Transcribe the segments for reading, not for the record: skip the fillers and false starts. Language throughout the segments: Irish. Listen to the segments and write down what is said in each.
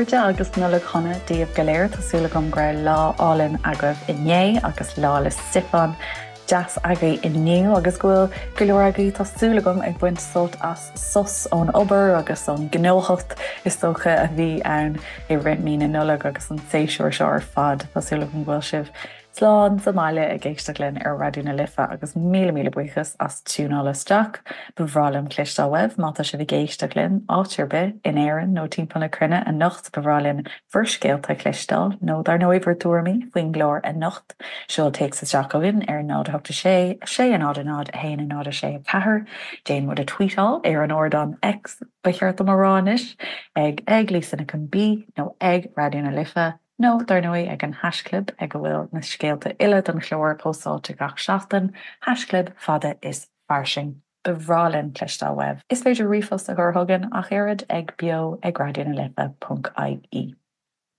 chairde agus Nollaig Shona daoibh go léir. Tá súil agam go raibh lá álainn agaibh inné agus Lá 'le Stiofáin deas agaibh inniu agus go bhfuil go leor agaibh, tá súil agam, ag baint sult as sos ón obair agus ón ngnóthacht is dócha a bhí ann i rith mí na Nollag agus an séasúr seo ar fad. Tá súil agam go bhfuil sibh Slán sa mbaile ag éisteacht linn ar Raidió na Life agus míle míle buíochas as tiúnáil isteach. Ba bhreá liom cloisteáil uaibh má tá sibh ag éisteacht linn áit ar bith in Éirinn nó timpeall na cruinne anocht. Ba bhreá linn bhur scéalta a chloisteáil nó dar ndóigh bhur dtuairimí faoin gclár anocht. Seol téacs isteach chugainn ar 0 8 6 6 0 0 1 0 6 4. Déan muid a tweetáil ar an ardán X, ba cheart dom a rá anois, ag ag Lisa Nic an B nó ag Raidió na Life. Nó, dar ndóigh, ag an haischlib ag a bhfuil na scéalta uile don chlár póstáilte gach seachtain, haischlib fada is fairsing. Ba bhreá linn cloisteáil uaibh. Is féidir ríomhphost a chur chugainn ach oiread ag beo ag raidió na life ponc ie.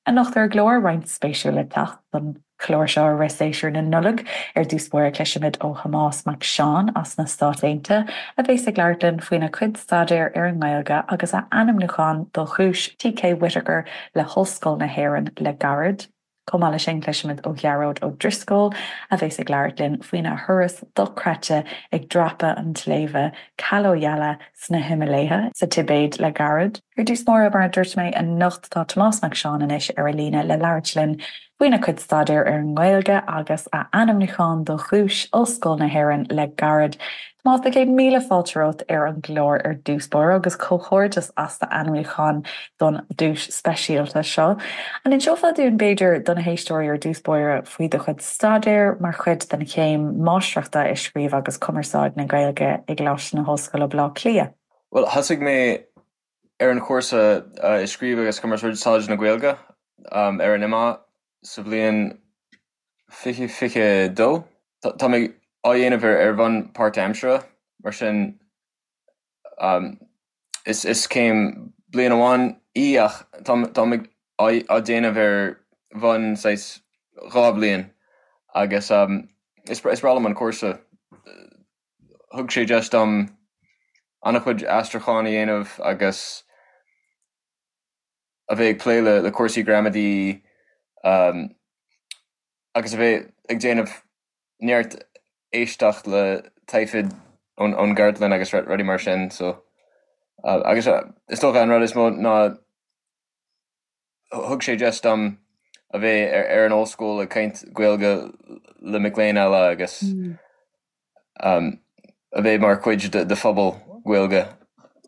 Anocht ar an gclár, roinnt spéisiúil le teacht don chlár seo i rith séasúr na Nollag. Ar dtús báire cloisfimid ó Thomás Mac Seáin as na Stáit Aontaithe a bheas ag labhairt linn faoina chuid staidéir ar an nGaeilge agus a ainmniúchán do Dhuais T.K. Whitaker le hOllscoil na hÉireann le gairid. Chomh maith leis sin, cloisfimid ó Ghearóid Ó Drisceoil, a bheas ag labhairt linn faoina thuras dochreidte ag dreapadh an tsléibhe Kalo-Yala sna Himiléithe sa Tibéid le gairid. Ar dtús báire, mar a dúirt mé, anocht tá Tomás Mac Seáin anois ar an líne le labhairt linn faoina chuid staidéir ar an nGaeilge agus a ainmniúchán do Dhuais Ollscoil na hÉireann le gairid. Tomás, tá 100,000 fáilte romhat ar an gclár ar dtús báire agus comhghairdeas as d'ainmniúchán don duais speisialta seo. An inseofá dúinn, b'fhéidir, do na héisteoirí ar dtús báire faoi do chuid staidéir mar chuid den chéim Máistreachta i Scríobh agus Cumarsáid na Gaeilge i gColáiste na hOllscoile, Baile Átha Cliath? Bhuel, thosaigh mé ar an chúrsa i Scríobh agus Cumarsáid na Gaeilge ar an IMMA sa bhliain 2022. Tá mé á dhéanamh ar bhonn páirtaimseartha, mar sin is céim bliain amháin í ach tá mé á déanamh ar bhonn saghas dhá bhliain agus is breá liom an cúrsa. Thug sé deis dom an-chuid aistriúchán a dhéanamh agus a bheith ag plé le cúrsaí gramadaí agus a bheith ag déanamh neart éisteacht le taifid ón gcartlann agus rudaí mar sin so agus is dócha an rud is mó ná thug sé deis dom a bheith ar an ollscoil ag caint Gaeilge le mic léinn eile agus a bheith mar chuid de phobal Gaeilge.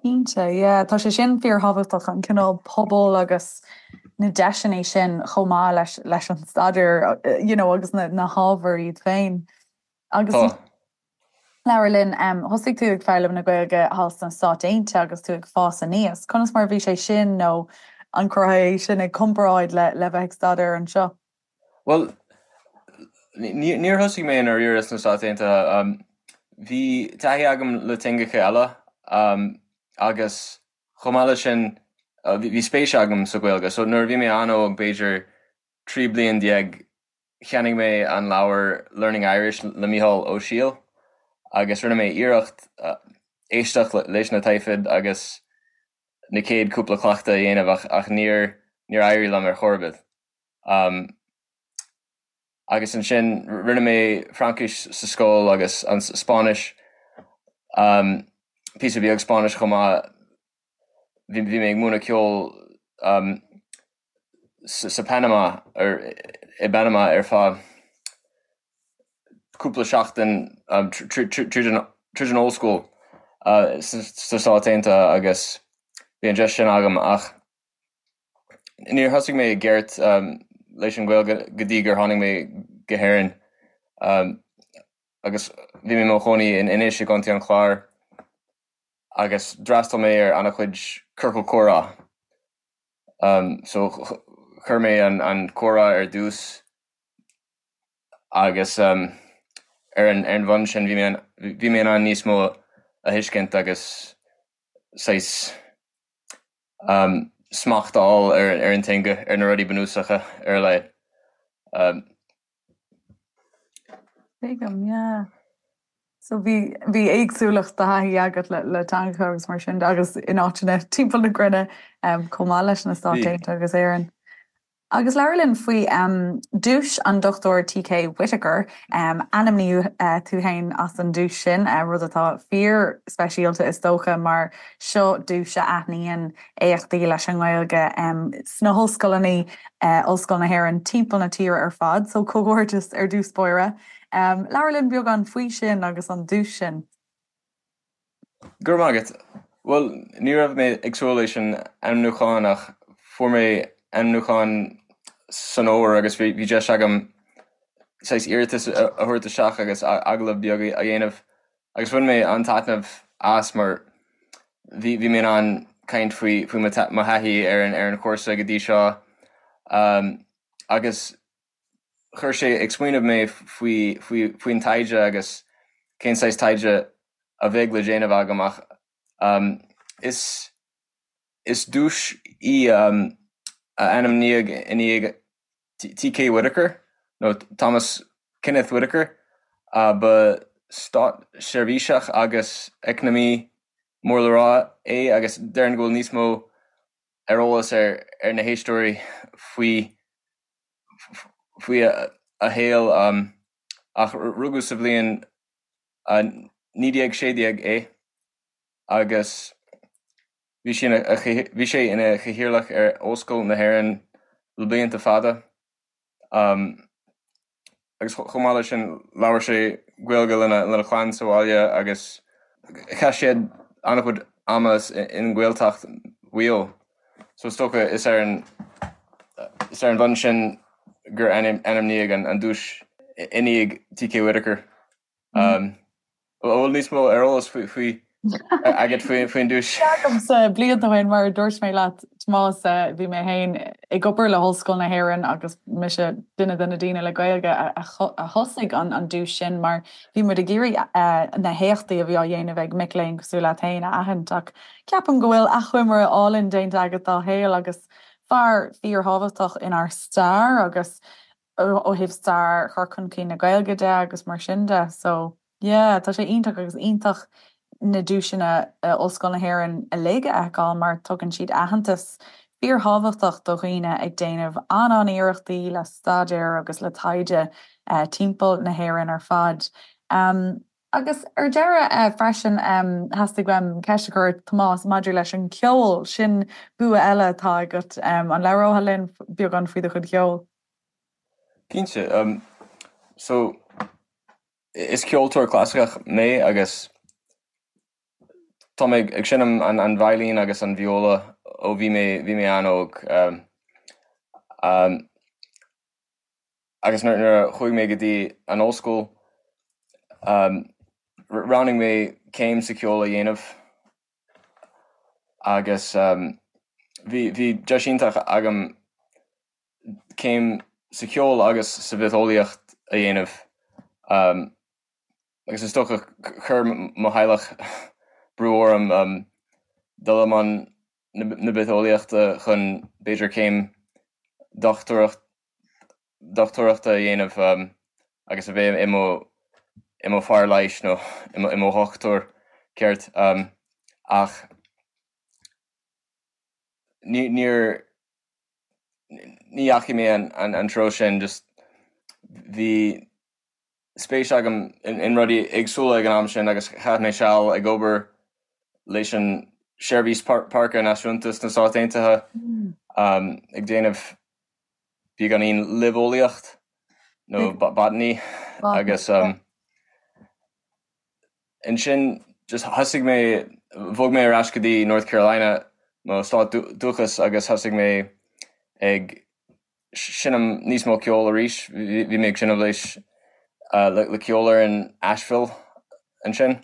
Cinnte, yeah. Tá sé sin fíorthábhachtach, an cineál pobal agus na deiseanna sin chomh maith leis leis an staidéar you know agus na na hábhair iad féin. Agus Tá. labhair linn, thosaigh tú ag foghlaim na Gaeilge thall sna Stáit Aontaithe agus tú ag fás aníos. Conas mar a bhí sé sin nó an gcuirfeá é sin i gcomparáid le le bheith ag staidéar anseo? Bhuel, níor thosaigh mé i ndáiríre sna Stáit Aontaithe. Bhí taithí agam le teangacha eile agus chomh maith leis sin bhí spéis agam sa Ghaeilge. So nuair a bhí mé an-óg, b'fhéidir 13 bliain, cheannaigh mé an leabhar Learning Irish le Mícheál Ó Siadhail agus rinne mé iarracht éisteacht leis na taifid agus na chéad cúpla cleachtadh a dhéanamh ach níor éirigh liom ar chor ar bith. Agus ansin rinne mé Fraincis sa scoil agus an Spáinnis, píosa beag Spáinnis chomh maith. Bhí mé ag múineadh ceoil sa Panama, i bPanama ar feadh cúpla seachtain tríd an ollscoil sna Stáit Aontaithe agus bhí an deis sin agam ach Níor thosaigh mé i gceart leis an Ghaeilge go dtí gur tháinig mé go hÉirinn agus bhí mé i mo chónaí in Inis i gContae an Chláir agus d'fhreastail mé ar an-chuid ciorcal comhrá. So chuir mé an comhrá ar dtús agus ar an bhonn sin bhí mé in ann níos mó a thuiscint agus saghas smacht a fháil ar an teanga, ar na rudaí bunúsacha ar a laghad. Tuigim, yeah. So bhí bhí éagsúlacht de thaithí agat le le teangacha agus mar sin de agus in áiteanna timpeall na cruinne chomh maith leis na Stáit Aontaithe agus Éirinn. Agus labhair linn faoi duais an Dr T.K. Whitaker. Ainmníodh tú féin as an duais sin, rud atá fíor speisialta is dócha mar seo duais a aithníonn éachtaí leis an nGaeilge sna hollscoileanna, Ollscoil na hÉireann timpeall na tíre ar fad. So comhghairdeas ar dtús báire. Labhair linn beagán faoi sin agus an duais sin. Go raibh maith agat. Bhuel, ní raibh mé ag súil leis an ainmniúchán ach fuair mé ainmniúchán san fhómhar agus bhí deis agam saghas iarratas a thabhairt isteach agus agallamh beag a dhéanamh agus bhain mé an-taitneamh as mar bhí bhí mé in ann caint faoi faoi mo thaithí ar an ar an chúrsa go dtí seo agus chuir sé ag smaoineamh mé faoi faoi faoin taighde agus cén saghas taighde a bheidh le déanamh agam ach is is duais í a ainmníodh i ndiaidh T.K. Whitaker nó Thomas Kenneth Whitaker ba státseirbhíseach agus eacnamaí mór le rá é agus déarfainn go bhfuil níos mó ar eolas ar ar na héisteoirí faoi faoi a shaol ach rugadh sa bhliain 1916 é agus bhí sé bhí sé ina chathaoirleach ar Ollscoil na hÉireann le blianta fada. Agus chomh maith leis sin labhair sé Gaeilge lena lena chlann sa bhaile agus chaith siad an-chuid ama i nGaeltacht Mhaigh Eo. So is dócha is ar an is ar an bhonn sin gur ainmníodh an duais i ndiaidh T.K. Whitaker. An bhfuil níos mó ar eolas faoi agat faoin duais? Agamsa blianta ó shin, mar a dúirt mé leat, Tomás, bhí mé féin ag obair le hOllscoil na hÉireann agus mise duine de na daoine le Gaeilge a thosaigh an duais sin mar bhí muid ag iarraidh na héachtaí a bhí á dhéanamh ag mic léinn cosúil leat féin a aithint ach ceapaim go bhfuil achoimre álainn déanta agat dá shaol agus fear fíorthábhachtach inár stair agus ó thaobh stair chur chun cinn na Gaeilge de agus mar sin de. So, yeah, tá sé iontach agus iontach na duaiseanna Ollscoil na hÉireann uilig a fheiceáil mar tugann siad aitheantas fíorthábhachtach do dhaoine ag déanamh an-an-iarrachtaí le staidéar agus le taighde timpeall na hÉireann ar fad. Agus ar deireadh freisin, theastaigh uaim ceist a chur ort, Tomás, maidir leis an cheol. Sin bua eile atá agat. An labhrófá linn beagán faoi do chuid cheoil? Cinnte. So, is ceoltóir clasaiceach mé agus tá mé ag seinm an veidhlín agus an vióla ó bhí mé bhí mé an-óg. Agus nuair a chuaigh mé go dtí an ollscoil, roghnaigh mé céim sa cheol a dhéanamh agus bhí bhí deis iontach agam céim sa cheol agus sa bhitheolaíocht a dhéanamh agus is dócha chuir mo theaghlach brú orm dul i mbun na bitheolaíochta chun b'fhéidir céim dochtúireacht dochtúireachta a dhéanamh agus a bheith i mo i mo fear leighis nó i mo dhochtúir ceart ach ní níor ní dheachaigh mé an treo sin just bhí spéis agam in rudaí éagsúla ag an am sin agus chaith mé seal ag obair leis an Seirbhís Páirce Náisiúnta sna Stáit Aontaithe ag déanamh beagáinín luibheolaíocht nó botany agus ansin just thosaigh mé, bhog mé ar ais go dtí North Carolina, mo stát dúchais agus thosaigh mé ag seinm níos mó ceoil arís. Bhí mé ag seinm leis le ceolfhoireann Asheville ansin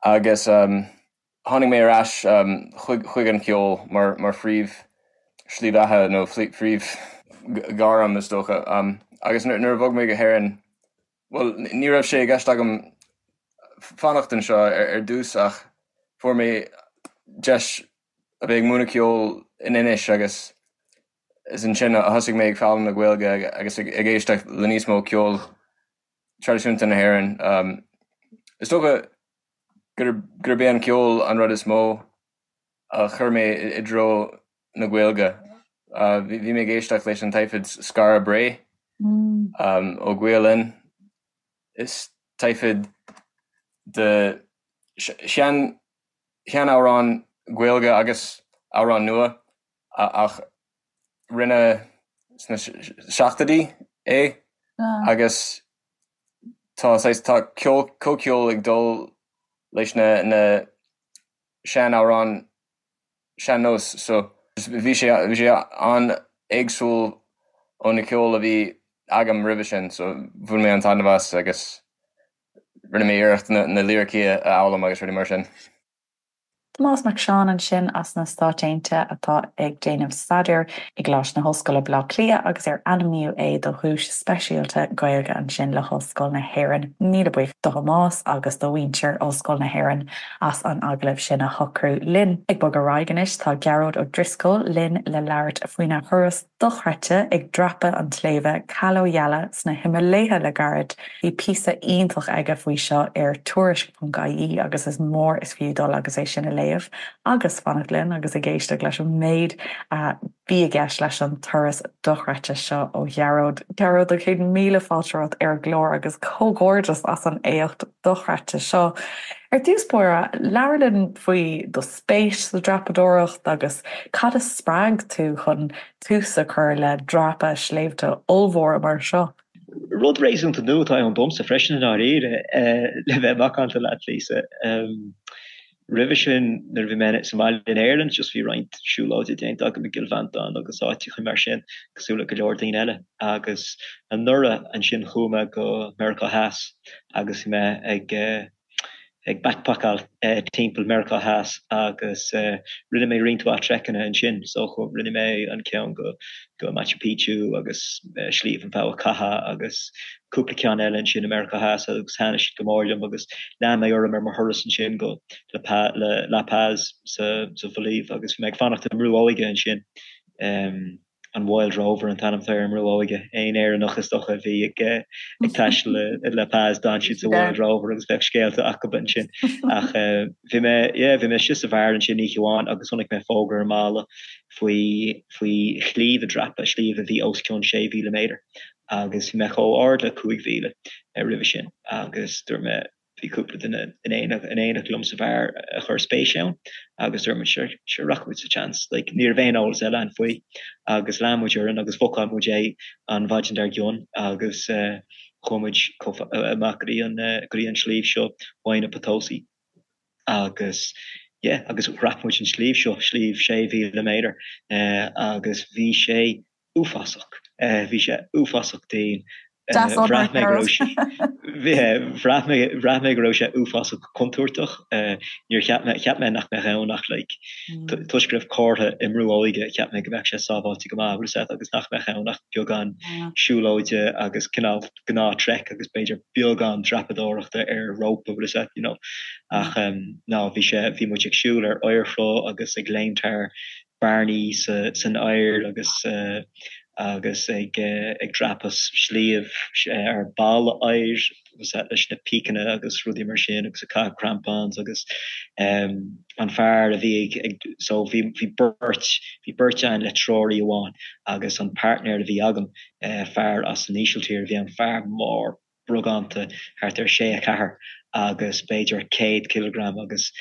agus tháinig mé ar ais chuig an cheol mar mar phríomh slí bheatha nó phríomh ghairm is dócha. Agus nuair a bhog mé go hÉirinn, bhuel ní raibh sé i gceist agam fanacht anseo ar dtús ach fuair mé deis a bheith ag múineadh ceoil in Inis agus is ansin a thosaigh mé ag foghlaim na Gaeilge agus ag éisteacht le níos mó ceol traidisiúnta na hÉireann. Is dócha gurb é an ceol an rud is mó a chuir mé i dtreo na Gaeilge. Bhí mé ag éisteacht leis an taifead Skara Brae ó Gael Linn. Is taifead de shean-amhráin Ghaeilge agus amhráin nua ach rinneadh sna seachtóidí é agus tá saghas, tá ceol, comhcheol ag dul leis na na sean-amhráin sean-nós so bhí sé bhí sé an-éagsúil ó na ceol a bhí agam roimhe sin so bhain mé an-taitneamh as agus rinne mé iarracht na na liricí a fhoghlaim agus rudaí mar sin. Tomás Mac Seáin ansin as na Stáit Aontaithe atá ag déanamh staidéir i gColáiste na hOllscoile Baile Átha Cliath agus ar ainmníodh é do dhuais speisialta Gaeilge ansin le hOllscoil na hÉireann. Míle buíochas do Thomás agus do mhuintir Ollscoil na hÉireann as an agallamh sin a shocrú linn. Ag bogadh ar aghaidh anois tá Gearóid Ó Drisceoil linn le labhairt faoina thuras dochreidte ag dreapadh an tsléibhe Kalo Yala sna Himiléithe le gairid. Bhí píosa iontach aige faoi seo ar Tuairisc.ie agus is mór is fiú dul agus é sin a léamh agus fanacht linn agus ag éisteacht leis an méid a bhí i gceist leis an turas dochreidte seo ó Ghearóid. Gearóid, 100,000 fáilte romhat ar an gclár agus comhghairdeas as an éacht dochreidte seo. Ar dtús báire, labhair linn faoi do spéis sa dreapadóireacht agus cad a spreag tú chun tús a chur le dreapadh sléibhte ollmhóra mar seo? Rud réasúnta nua atá ann domsa freisin i ndáiríre, le bheith macánta leat, Lisa. Roimhe sin, nuair a bhí mé sa mbaile in Éirinn, just bhí roinnt siúlóide déanta agam i gCill Mhantáin agus áiteacha mar sin, cosúil le go leor daoine eile. Agus anuraidh ansin chuaigh mé go Meiriceá Theas agus bhí mé ag ag backpackáil timpeall Meiriceá Theas agus rinne mé roinnt mhaith treiceanna ansin. So rinne mé an ceann go go Machu Picchu agus Sliabh an Bhogha Catha agus cúpla ceann eile ansin i Meiriceá Theas agus thaitnigh siad go mór liom agus lean mé orm ar mo thuras ansin go La Paz sa Bholaiv agus bhí mé ag fanacht i mbrú óige ansin. An Wild Rover an t-ainm atá ar an mbrú óige. Aon Éireannach is dócha a bhí ag ag taisteal i La Paz d'fhan siad sa Wild Rover agus bheadh scéalta acu ansin. Ach bhí mé, yeah, bhí mé istigh sa bheár ansin oíche amháin agus chonaic mé fógra ar an mballa faoi faoi shliabh a dreapadh, sliabh a bhí os cionn 6,000 méadar agus bhí mé chomh ard le 5,000 roimhe sin agus dúirt mé, bhí cúpla duine in éineacht liom sa bheár a chuir spéis ann agus dúirt muid sure, sure rachaidh muid sa tseans, like ní raibh aon eolas eile ann faoi agus lean muid orainn agus bhookáil muid é an mhaidin dár gcionn agus chuaigh muid amach go dtí an go dtí an sliabh seo, Huayna Potosi agus yeah agus dhreap muid an sliabh seo, sliabh 6,000 méadar agus bhí sé uafásach. Bhí sé uafásach dian. Bhraith mé go raibh sé bhraith mé bhraith mé go raibh sé uafásach contúirteach. Níor cheap mé cheap mé nach mbeadh ann ach like toisc go raibh comhartha i mbrú óige cheap mé go mbeadh sé sábháilte go maith bhfuil a fhios agat agus nach mbeadh ann ach beagán siúlóide agus cineál gnáth trek agus b'fhéidir beagán dreapadóireachta ar rópa bhfuil a fhios agat you know. Ach no bhí sé bhí muid ag siúl ar oighearshruth agus ag léimt thar bearnaí san oighear agus agus ag ag dreapadh sliabh ar balla oighir leis na píceanna agus rudaí mar sin agus ag caitheamh crampons agus an fear a bhí ag ag so bhí bhí beirt bhí beirt ann le treoraí amháin agus an partner a bhí agam fear as an Ísiltír a bhí ann fear mór brógánta, thart ar sé 4 agus b'fhéidir 100 cileagram agus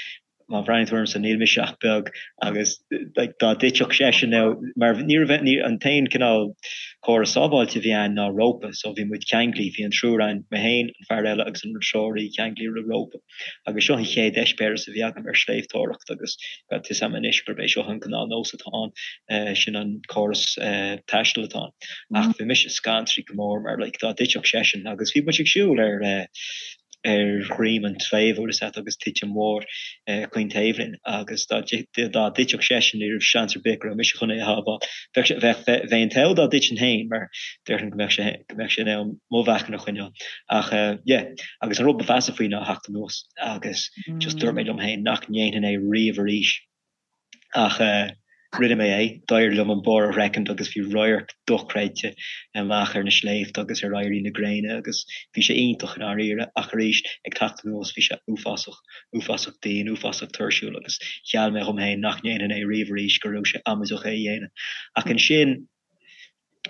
má bhreathnaíonn tú ormsa níl mise ach beag agus like dá dtitfeadh seisean now mar ní raibh ní an t-aon cineál córas sábháilte a bhí ann ná rópa so bhí muid ceanglaithe bhí an triúr ann mé féin an fear eile agus an treoraí ceanglaithe le rópa. Agus seo an chéad eispéireas a bhí agam ar shléibhteoireacht agus tá fhios agam anois gurb é seo an gnáthnós atá ann, sin an córas taistil atá ann. Ach bhí mise scanraithe go mór mar like dá dtitfeadh seisean agus bhí muid ag siúl ar ar dhroim an tsléibhe bhfuil fhios agat agus titim mhór chaon taobh linn agus dá dtitfeadh seisean ní raibh seans ar bith go raibh mise chun é a shábháil. Bheadh sé bheadh bheinn an t-ádh dá dtitfinn féin mar déarfainn go mbeadh sé go mbeadh sé in ann mo mheáchan a choinneáil. Ach yeah. Agus an rud ba mheasa faoi ná theacht anuas agus just dúirt mé liom féin nach ndéanfainn é riamh arís. Ach eh. Rinne mé é, d'éirigh liom an barr a shroichint agus bhí radharc dochreidte amach ar na sléibhte agus ar éirí na gréine agus bhí sé iontach i ndáiríre ach arís ag teacht anuas bhí sé uafásach, uafásach dian, uafásach tuirsiúil agus gheall mé dhom féin nach ndéanfainn é riamh arís, go raibh sé amaideach é a dhéanamh. Ach ansin.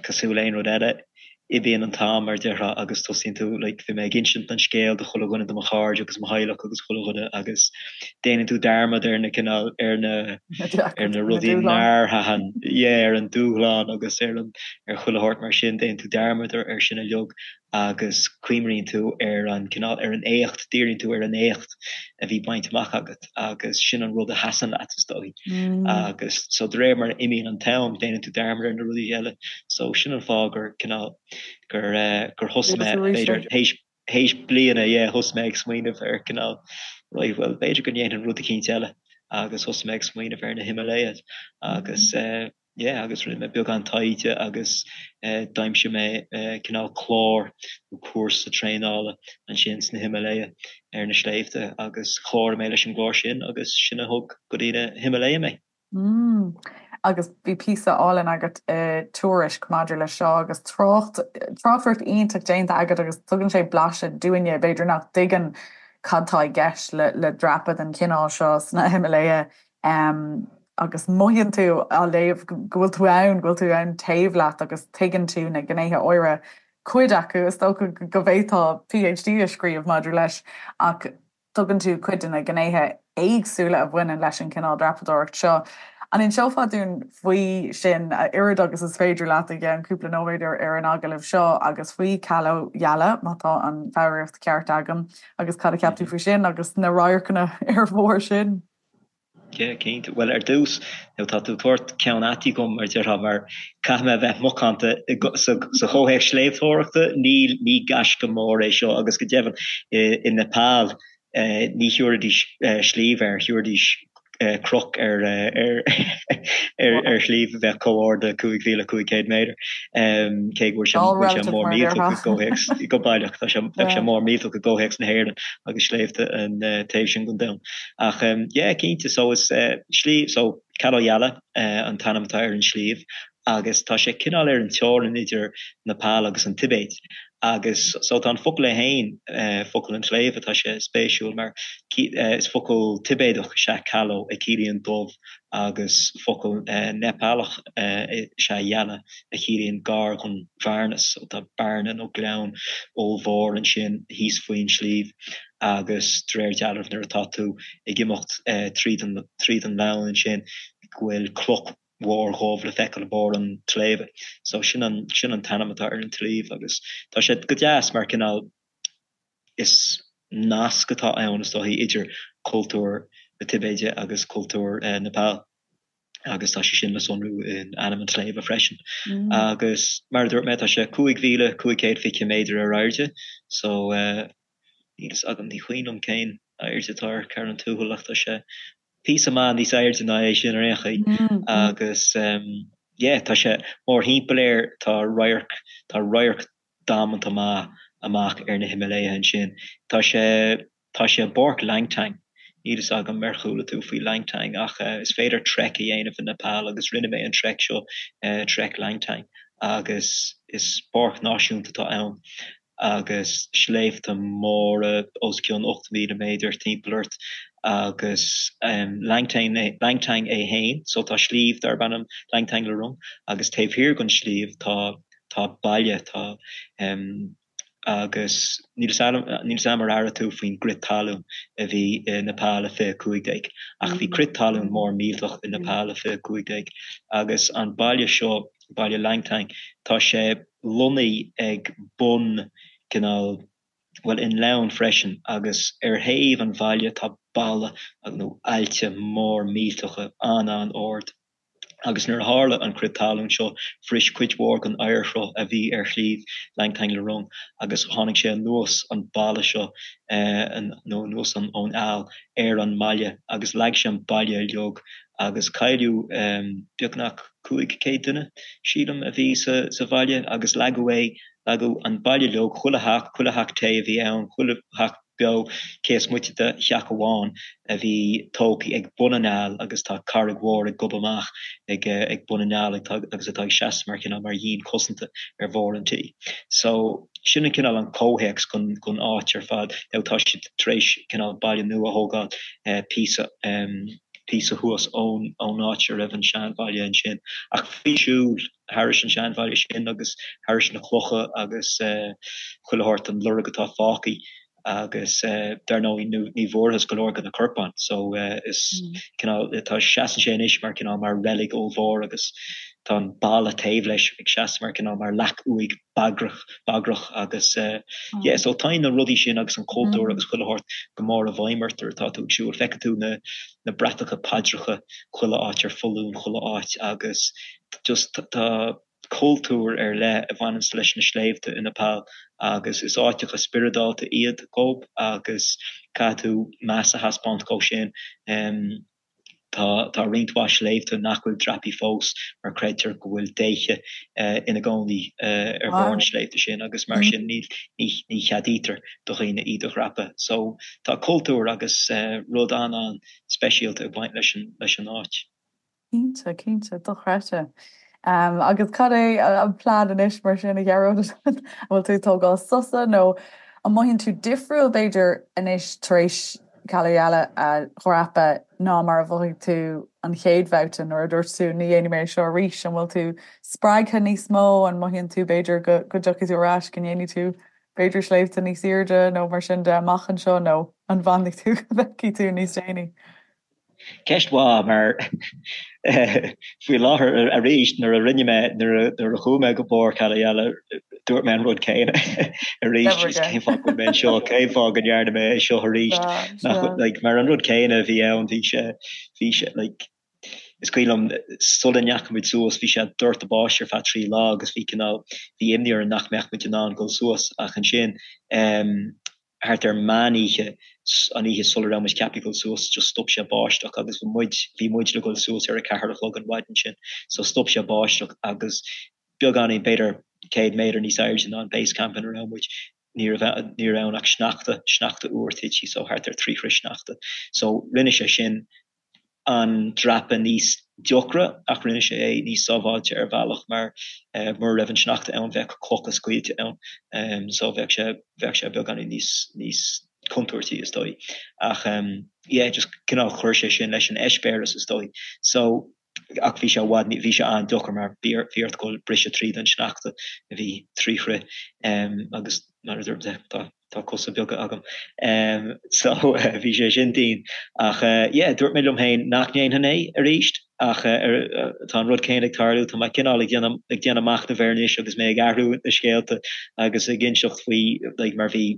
Cosúil le aon rud eile, imíonn an t-am, mar a déarfá, agus tosaíonn tú, like, bhí mé ag insint an scéil do chuile dhuine, do mo chairde agus mo theaghlach agus chuile dhuine agus déanann tú dearmad ar na cineál, ar na, ar na rudaí nár thaitin, yeah, ar an dúshlán agus ar an, ar chuile shórt mar sin, déanann tú dearmad ar, ar sin uilig agus cuimhníonn tú ar an cineál, ar an éacht, díríonn tú ar an éacht a bhí bainte amach agat. agus sin an rud a sheasann leat is dóigh. Agus so de réir mar a imíonn an t-am déanann tú dearmad ar na rudaí eile. So sin an fáth gur cineál gur eh, gur thosaigh mé b'fhéidir théis théis bliana yeah thosaigh mé ag smaoineamh ar cineál right well b'fhéidir go ndéanfainn rud eicínt eile agus thosaigh mé ag smaoineamh ar na Himalayas agus eh, yeah agus rinne mé beagán taighde agus d'aimsigh mé cineál clár nó cúrsa traenála ansin sna Himalaya ar na sléibhte agus chláraigh mé leis an gclár sin agus sin a thug go dtí na Himalaya mé. Mm. Agus bhí píosa álainn agat i Tuairisc maidir leis seo agus trácht, tráchtaireacht iontach déanta agat agus tugann sé blaiseadh dúinne, b'fhéidir nach dtuigeann cad tá i gceist le le dreapadh den chineál seo sna Himalaya. Agus mothaíonn tú á léamh go bhfuil tú ann, go bhfuil tú ann taobh leat agus tuigeann tú na gnéithe áirithe, cuid acu, is dócha go bhféadfá PhD a scríobh maidir leis, ach tugann tú cuid de na gnéithe éagsúla a bhaineann leis an chineál dreapadóireacht seo. An inseofá dúinn faoi sin, a oiread agus is féidir leat i gceann cúpla nóiméad ar an agallamh seo, agus faoi Kalo Yala, má tá an foghraíocht ceart agam, agus cad a cheap tú faoi sin agus na radharcanna ar bharr sin? Yeah, cinnte. Bhuel, ar dtús, nó tá tú ag tabhairt ceann ait dhom, mar a déarfá, mar caithfidh mé a bheith macánta sa chomhthéacs sléibhteoireachta, níl, ní gaisce mór é seo agus go deimhin i Nepal ní thiúrfaidís sliabh air, thiúrfaidís cnoc ar ar shliabh a bheadh chomh ard le 5,500 méadar, cé go bhfuil sé bhfuil sé mór millteach i gcomhthéacs, go baileach, tá sé, bheadh sé mór millteach i gcomhthéacs na hÉireann agus sléibhte an taobh sin den domhan. Ach yeah, cinnte, so is sliabh, so Kalo Yala an t-ainm atá ar an sliabh agus tá sé cineál ar an teorainn idir Nepal agus an Tibéid agus so tá an focal é féin, focal an tsléibhe, tá sé spéisiúil mar is focal Tibéadach is ea Kalo a chiallaíonn dubh agus focal Neipealach is ea Yala a chiallaíonn gar don bhearna, so tá bearna nó gleann ollmhór ansin thíos faoin sliabh. agus de réir dealraimh nuair atá tú ag imeacht tríd an tríd an ngleann ansin go bhfuil cloch mhór dhubh le feiceáil i mbarr an tsléibhe. So sin an sin an t-ainm atá ar an tsliabh agus tá sé go deas mar cineál is nasc atá ann is dóichí idir cultúr na Tibéide agus cultúr Nepal. agus tá sé sin le sonrú in ainm an tsléibhe freisin. Agus mar a dúirt mé, tá sé 5,520 méadar ar airde, so níl fhios agam, ní cuimhin liom cén airde atá ar Carn an Tuathail ach tá sé píosa maith níos airde ná é sin ar aon chaoi. Agus yeah, tá sé mórthimpeall air, tá radharc, tá radharc damanta maith amach ar na Himalaya ansin. Tá sé. Tá sé i bPáirc Langtang. Níl fhios agam ar chuala tú faoi Langtang ach is féidir trek a dhéanamh i Nepal agus rinne mé an trek seo, Trek Langtang, agus is páirc náisiúnta atá ann agus sléibhte móra os cionn 8,000 méadar timpeall ort agus Langtang Langtang é féin, so tá sliabh darb ainm Langtang Lirung agus taobh thiar den sliabh tá tá baile, tá. Agus níl 'fhios a'm ar airigh tú faoin gcrith talún a bhí i Nepal i 2015, ach bhí crith talún mór millteach i Nepal i 2015 agus an baile seo, baile Langtang, tá sé lonnaithe ag bun cineál, bhuel i ngleann freisin agus ar thaobh an bhaile tá balla nó aillte mór millteacha an-an-ard. Agus nuair a tharla an crith talún seo, bhris cuid mhór den oighearshruth a bhí ar shliabh Langtang Lirung agus tháinig sé anuas an balla seo, nó anuas ón aill, ar an mbaile agus leag sé an baile uilig agus cailleadh beagnach 500 duine, sílim, a bhí sa bhaile agus leagadh é, leagadh an baile uilig, chuile theach, chuile theach tae a bhí ann, chuile theach. beo, cé is moite de theach amháin a bhí tógtha ag bun an fhaill agus tá carraig mhór ag gobadh amach ag ag bun an fhaill agus atá ag seasamh mar chineál mar dhíon cosanta ar bharr an tí. So sin an cineál an comhthéacs gon gon áit ar fad. Now tá siad tar éis cineál baile nua a thógáil píosa píosa thuas ón ón áit a raibh an seanbhaile ansin ach bhí siúl thairis an seanbhaile sin agus thairis na clocha agus chuile shórt an lorg atá fágtha agus dar ndóigh ní bhfuarthas go leor de na corpáin so is cineál tá seasann sé anois mar cineál mar reilig ollmhór agus tá an balla taobh leis ag seasamh mar cineál mar leac uaigh bagrach bagrach agus yeah so tá na rudaí sin agus an cultúr agus chuile shórt go mór i bhfeidhm ort nuair atá tú ag siúl feicfidh tú na na bratacha paidreacha chuile áit ar foluain chuile áit agus just tá cultúr ar leith a bhaineanns leis na sléibhte i Nepal agus is áiteacha spioradálta iad dhób agus caithfidh tú meas a thaispeáint dhó sin. Tá tá roinnt mhaith sléibhte nach bhfuil dreapaithe fós mar creidtear go bhfuil déithe ina gcónaí ar bharr na sléibhte sin agus mar sin ní ní ní cheadaítear do dhaoine iad a dhreapadh. So tá cultúr agus rud an-an-speisialta ag baint leis an leis an áit. Cinnte, cinnte, dochreidte. Agus cad é an plean anois mar sin, a Ghearóid? An bhfuil tú ag tógáil sosa nó an mothaíonn tú difriúil, b'fhéidir, anois tar éis Kala Yala a dhreapadh ná mar a mhothaigh tú an chéad bhabhta nuair a dúirt tú ní dhéanfaidh mé é seo arís? An bhfuil tú spreagtha níos mó? An mothaíonn tú, b'fhéidir, go dtiocfaidh tú ar ais, go ndéanfaidh tú, b'fhéidir, sléibhte níos airde nó mar sin de amach anseo nó an bhfanfaidh tú go bhfeicfidh tú níos déanaí? Ceist mhaith, mar faoi láthair arís nuair a rinne mé, nuair a chuaigh mé go barr Kala Yala, dúirt mé an rud céanna arís, cén fáth go bhfuil mé anseo, cén fáth go ndearna mé é seo arís, like, mar an rud céanna a bhí ann, bhí sé, bhí sé, like, is cuimhin liom sula ndeachaigh muid suas, bhí sé ag doirteadh báistí ar feadh 3 lá agus bhí cineál, bhí imní orainn nach mbeadh muid in ann dul suas ach ansin, thart ar meán oíche, an oíche sula raibh muid ceaptha dul suas, just stop sé báisteach agus bhí muid, bhí muid le dul suas ar a ceathair a chlog an mhaidin sin, so stop sé báisteach agus beagáinín, b'fhéidir 100 méadar níos airde ná an base camp ina raibh muid, ní raibh, ní raibh ann ach sneachta, sneachta úr tite, so thart ar 3 throigh sneachta. So rinne sé sin an dreapadh níos deacra ach rinne sé é níos sábháilte ar bhealach mar mura raibh an sneachta ann bheadh clocha scaoilte ann so bheadh sé bheadh sé beagáinín níos níos contúirtí is dóigh ach yeah just cineál chuir sé sin leis an eispéireas is dóigh so ach bhí sé i bhfad bhí sé an-deacair mar bhí bhí ort dul briseadh tríd an sneachta a bhí 3 throigh agus mar a dúirt mé tá Tá cosa beaga agam. So bhí sé sin dian. Ach yeah, dúirt mé liom féin nach ndéanfainn é arís ach tá an rud céanna ag tarlú, tá mé cineál ag déanamh ag déanamh machnaimh air anois agus mé ag athrú na scéalta agus ag inseacht faoi like mar bhí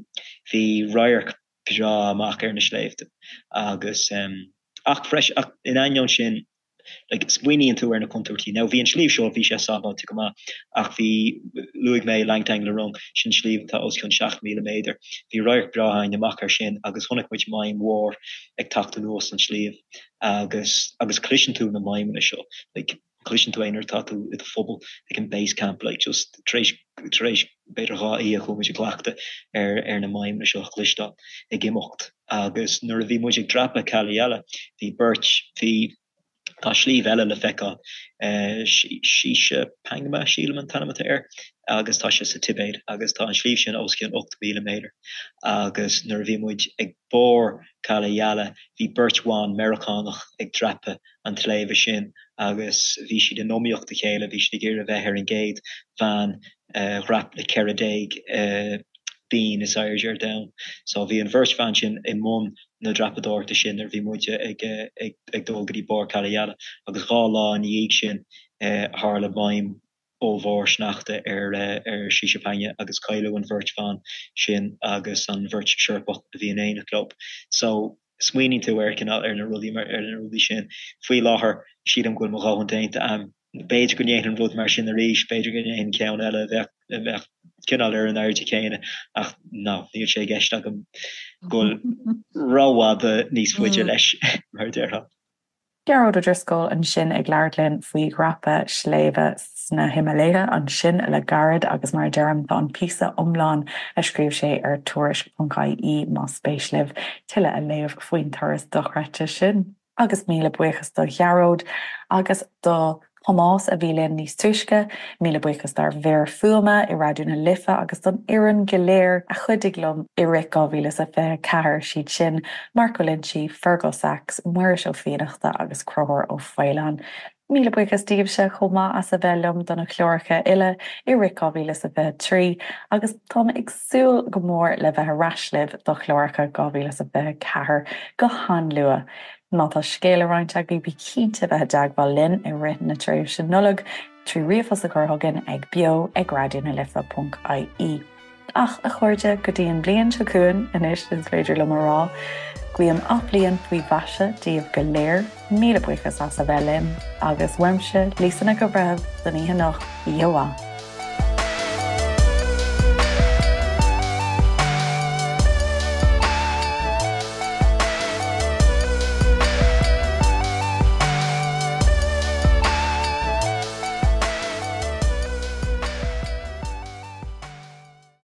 bhí radharc breá amach ar na sléibhte agus ach freisin ach in ainneoin sin like, smaoiníonn tú ar na contúirtí. Now, bhí an sliabh seo, bhí sé sábháilte go maith, ach bhí, luaigh mé Langtang Lirung, sin sliabh atá os cionn 7,000 méadar. Bhí radharc breá againn amach air sin agus chonaic muid maidhm mhór ag teacht anuas an sliabh agus, agus cloiseann tú na maidhmeanna seo, like, cloiseann tú é nuair atá tú i do phuball ag an base camp, like, just tar éis, tar éis b'fhéidir 2 oíche chuaigh muid i gcleachtadh ar, ar na maidhmeanna seo a chloisteáil ag imeacht. Agus nuair a bhí muid ag dreapadh Kala Yala, bhí beirt, bhí, tá sliabh eile le feiceáil, Shisha Pangma, sílim an t-ainm atá air, agus tá sé sa Tibéid, agus tá an sliabh sin os cionn 8,000 méadar. Agus nuair a bhí muid ag barr Kala Yala, bhí beirt bhan Meiriceánach ag dreapadh an tsléibhe sin agus bhí siad in iomaíocht a chéile, bhí siad ag iarraidh a bheith ar an gcéad bhean a dhreap na 14 binn is airde ar domhan. So bhí an bheirt bhan sin i mbun na dreapadóireachta sin nuair a bhí muide ag ag dul go dtí barr Kala Yala agus dhá lá ina dhiaidh sin tharla maidhm ollmhór sneachta ar ar Shishapangma agus cailleadh an bheirt bhan sin agus an bheirt Seirpeach a bhí in éineacht leo. So smaoiníonn tú ar cineál ar na rudaí ar na rudaí sin. Faoi láthair sílim go bhfuil mo dhóthain déanta a'm. B'fhéidir go ndéanfainn rud mar sin arís, b'fhéidir go ndéanfainn ceann eile a bheadh, a bheadh cineál ar an airde chéanna ach no, níl sé i gceist agam dul rófhada níos faide leis, mar a déarfá. Gearóid Ó Drisceoil ansin ag labhairt linn faoi dhreapadh sléibhe. sna Himiléithe ansin le gairid agus mar a deirim tá an píosa iomlán a scríobh sé ar tuairisc.ie más spéis libh tuilleadh a léamh faoin turas dochreidte sin. Agus míle buíochas do Ghearóid agus do Thomás a bhí linn níos túisce. Míle buíochas dár bhfir fuaime i Raidió na Life agus don fhoireann go léir a chuidigh liom i rith 2024, siad sin, Mark Ó Loinsigh, Fergal Sachs, Muiris Ó Fiannachta agus Conchúr Ó Faoláin. Míle buíochas daoibhse chomh maith as a bheith liom do na cláracha uile i rith 2023 agus táim ag súil go mór le bheith ar ais libh do chláracha 2024 go han-luath. Má tá scéal le roinnt agaibh bí cinnte bheith i dteagmháil linn i rith na tréimhse Nollag trí ríomhphost a chur chugainn ag beo ag raidionalife.ie. Ach, a chairde, go dtí an bhliain seo chugainn anois is féidir liom a rá, guím athbhliain faoi mhaise daoibh go léir, míle buíochas as a bheith linn, agus uaimse, Lisa Nic an Bhreithimh, don oíche anocht, oíche mhaith.